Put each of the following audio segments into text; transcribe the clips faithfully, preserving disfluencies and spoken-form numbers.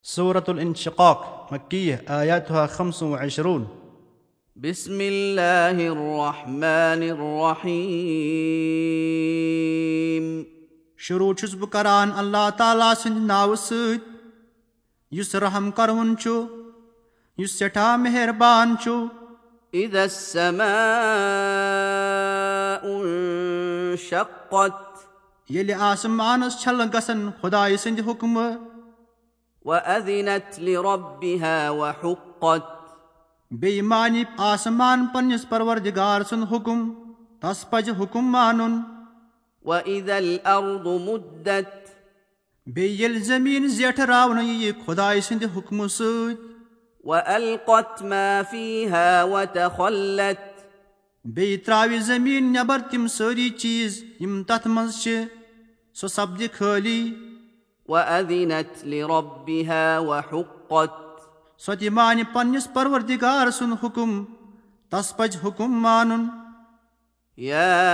سورة الانشقاق، مكية، آياتها خمس وعشرون. بسم الله الرحمن الرحيم. شروع چھُس بہٕ کران اللہ تعالیٰ سٕنٛدِ ناوٕ سۭتۍ، یُس رحم کرون چھُ، یُس سٮ۪ٹھاہ مہربان چھُ۔ إذا السماء انشقت. ییٚلہِ آسمانس چھلہٕ گژھن خدایہِ سٕنٛدِ حُکمہٕ۔ وأذنت لربها وحقت. بیٚیہِ مانہِ آسمان پننِس پروردگار سُنٛد حُکم، تس پزِ حُکم مانُن۔ وإذا الأرض مدت. بیٚیہِ ییٚلہِ زٔمیٖن زیٹھراونہٕ یِیہِ خدایہِ سٕنٛدِ حُکمہٕ سۭتۍ۔ وألقت ما فيها وتخلت. بیٚیہِ ترٛاوِ زٔمیٖن نٮ۪بر تِم سٲری چیٖز، یِم تتھ منٛز چھِ، سۄ سپدِ خٲلی۔ وأذنت لربها وحقت۔ سۄ تہِ مانہِ پننِس پروردگار سُنٛد حُکم، تس پزِ حُکم مانُن۔ يا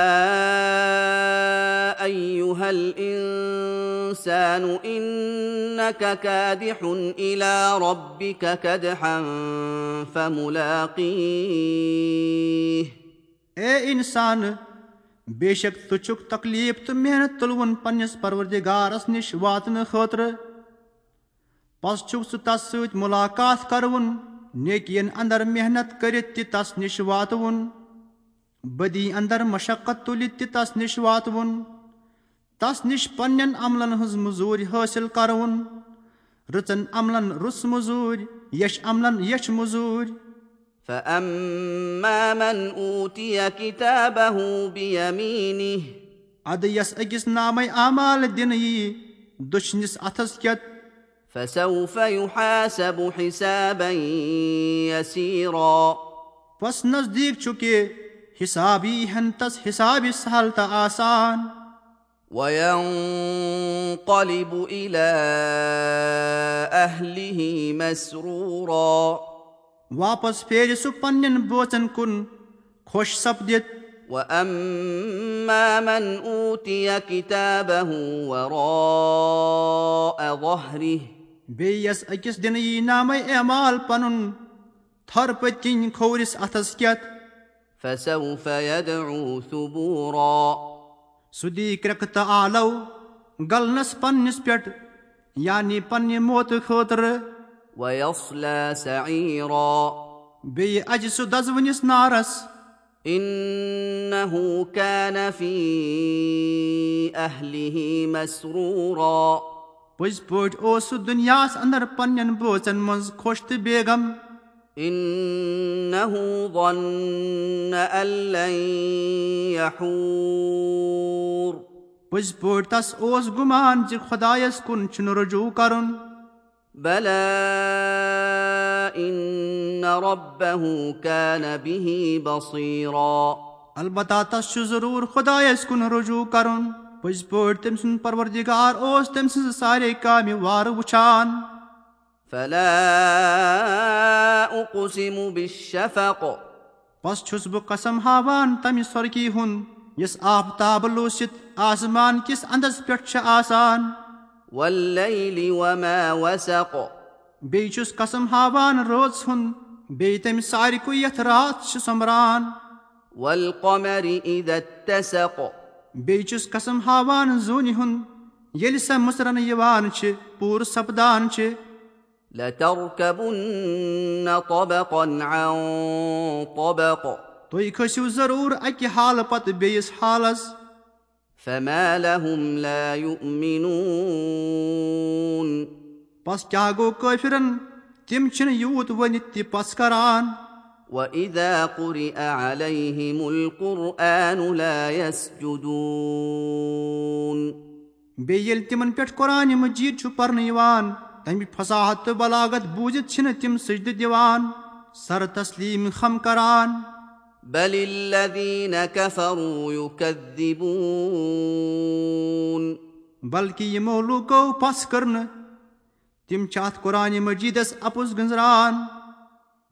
أيها الإنسان إنك كادح إلى ربك كدحا فملاقيه۔ اے انسان، بے شک ژٕ چھُکھ تکلیف تہٕ محنت تُلوُن پننِس پروردگارس نِش واتنہٕ خٲطرٕ۔ پس چھُکھ ژٕ تس سۭتۍ ملاقات کرٕوُن، نیکین اندر محنت کٔرِتھ تہِ تس نِش واتٕوُن، بدی اندر مشقت تُلِتھ تہِ تس نِش واتٕوُن، تس نِش پننٮ۪ن عملن ہٕنٛز مٔزوٗرۍ حٲصِل کرٕوُن، رٕژن عملن رٕژ مٔزوٗرۍ، یچھ عملن یچھ مٔزوٗرۍ۔ فأما من أوتي كتابه بيمينه۔ ادٕ یس أکِس نامے اعمال دِنہٕ یِیہِ دٔچھنِس اتھس کٮ۪تھ۔ فسوف يحاسب حسابا يسيرا۔ پس نزدیٖک چھُ کہِ حساب یی ہن تس حسابِ سہل تہٕ آسان۔ وينقلب إلى أهله مسرورا۔ واپس پھیرِ سُہ پننٮ۪ن بٲژن کُن خۄش سپدِتھ۔ وأما من أوتي كتابه وراء ظهره۔ بیٚیہِ یس أکِس دِنہٕ یی نامے اعمال پنُن تھر پٔتۍ کِنۍ کھوورِس اتھس کٮ۪تھ۔ فسوف يدعو ثبورا۔ سُہ دی کرٛٮ۪کھ تہٕ آلو گلنس پننِس پٮ۪ٹھ، یعنی پننہِ موتہٕ خٲطرٕ۔ ويصلى سعيرا۔ بیٚیہِ اژِ سُہ دزوٕنِس نارس۔ إنه كان في أهله مسرورا۔ پٔزۍ پٲٹھۍ اوس سُہ دُنیاہس اندر پننٮ۪ن بٲژن منٛز خۄش تہٕ بیگم۔ إنه ظن أن لن يحور۔ پٔزۍ پٲٹھۍ تس اوس گُمان زِ خۄدایس کُن چھُنہٕ رجوع کرُن۔ بلى إن ربه كان به بصيرا۔ البتہ تس چھُ ضروٗر خۄدایس کُن رجوع کرُن۔ پٔزۍ پٲٹھۍ تٔمۍ سُنٛد پروردگار اوس تٔمۍ سٕنٛزٕ سارے کامہِ وارٕ وٕچھان۔ فلا أقسم بالشفق۔ پس چھُس بہٕ قسم ہاوان تمہِ سۄرکی ہُنٛد، یُس آفتاب لوٗسِتھ آسمان کِس اندس پٮ۪ٹھ چھِ آسان۔ والليل وما وسق۔ بیٚیہِ چھُس قسم ہاوان رٲژ ہُنٛد، بیٚیہِ تمہِ سارِکُے یتھ راتھ چھِ سۄمبران۔ والقمر إذا اتسق۔ بیٚیہِ چھُس قسم ہاوان زوٗنہِ ہُنٛد، ییٚلہِ سۄ مٕژرنہٕ یِوان چھِ، پوٗرٕ سپدان چھِ۔ لتركبن طبقا عن طبق۔ تُہۍ کھٔسِو ضروٗر اکہِ حالہٕ پتہٕ بیٚیِس حالس۔ فما لهم لا يؤمنون۔ پس کیٛاہ گوٚو کٲفرن؟ تِم چھِنہٕ یوٗت ؤنِتھ تہِ پس کران۔ وإذا قرئ عليهم القرآن لا يسجدون۔ بیٚیہِ ییٚلہِ تِمن پٮ۪ٹھ قرآنِ مجیٖد چھُ پرنہٕ یِوان، تمہِ فصاحت تہٕ بلاغت بوٗزِتھ چھِنہٕ تِم سجدٕ دِوان، سر تسلیٖم خم کران۔ بل الذين كفروا يكذبون۔ بلکہِ یِمو لوٗکو پس کٔر نہٕ، تِم چھِ اتھ قرآنِ مجیٖدس اپُز گٔنٛزراوان۔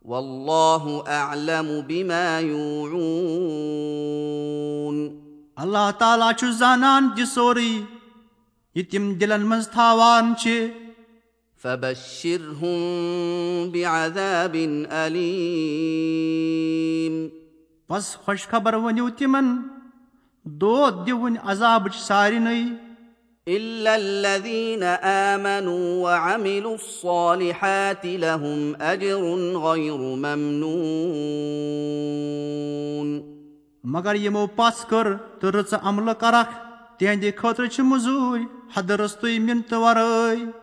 والله أعلم بما يوعون۔ اللہ تعالیٰ چھُ زانان تہِ سورُے، یہِ تِم دِلن منٛز تھاوان چھِ۔ فبشرهم بعذاب أليم. پس خوشخبر ؤنِو تِمن، دود دِوٕنۍ عذابٕچ سارنٕے۔ إلا الذين آمنوا وعملوا الصالحات لهم أجر غير ممنون. مگر یِمو پژھ کٔر تہٕ رٕژٕ عملہٕ کرکھ، تِہنٛدِ خٲطرٕ چھِ مٔزوٗرۍ حدٕ رٕژتُے، مِنتہٕ ورٲے۔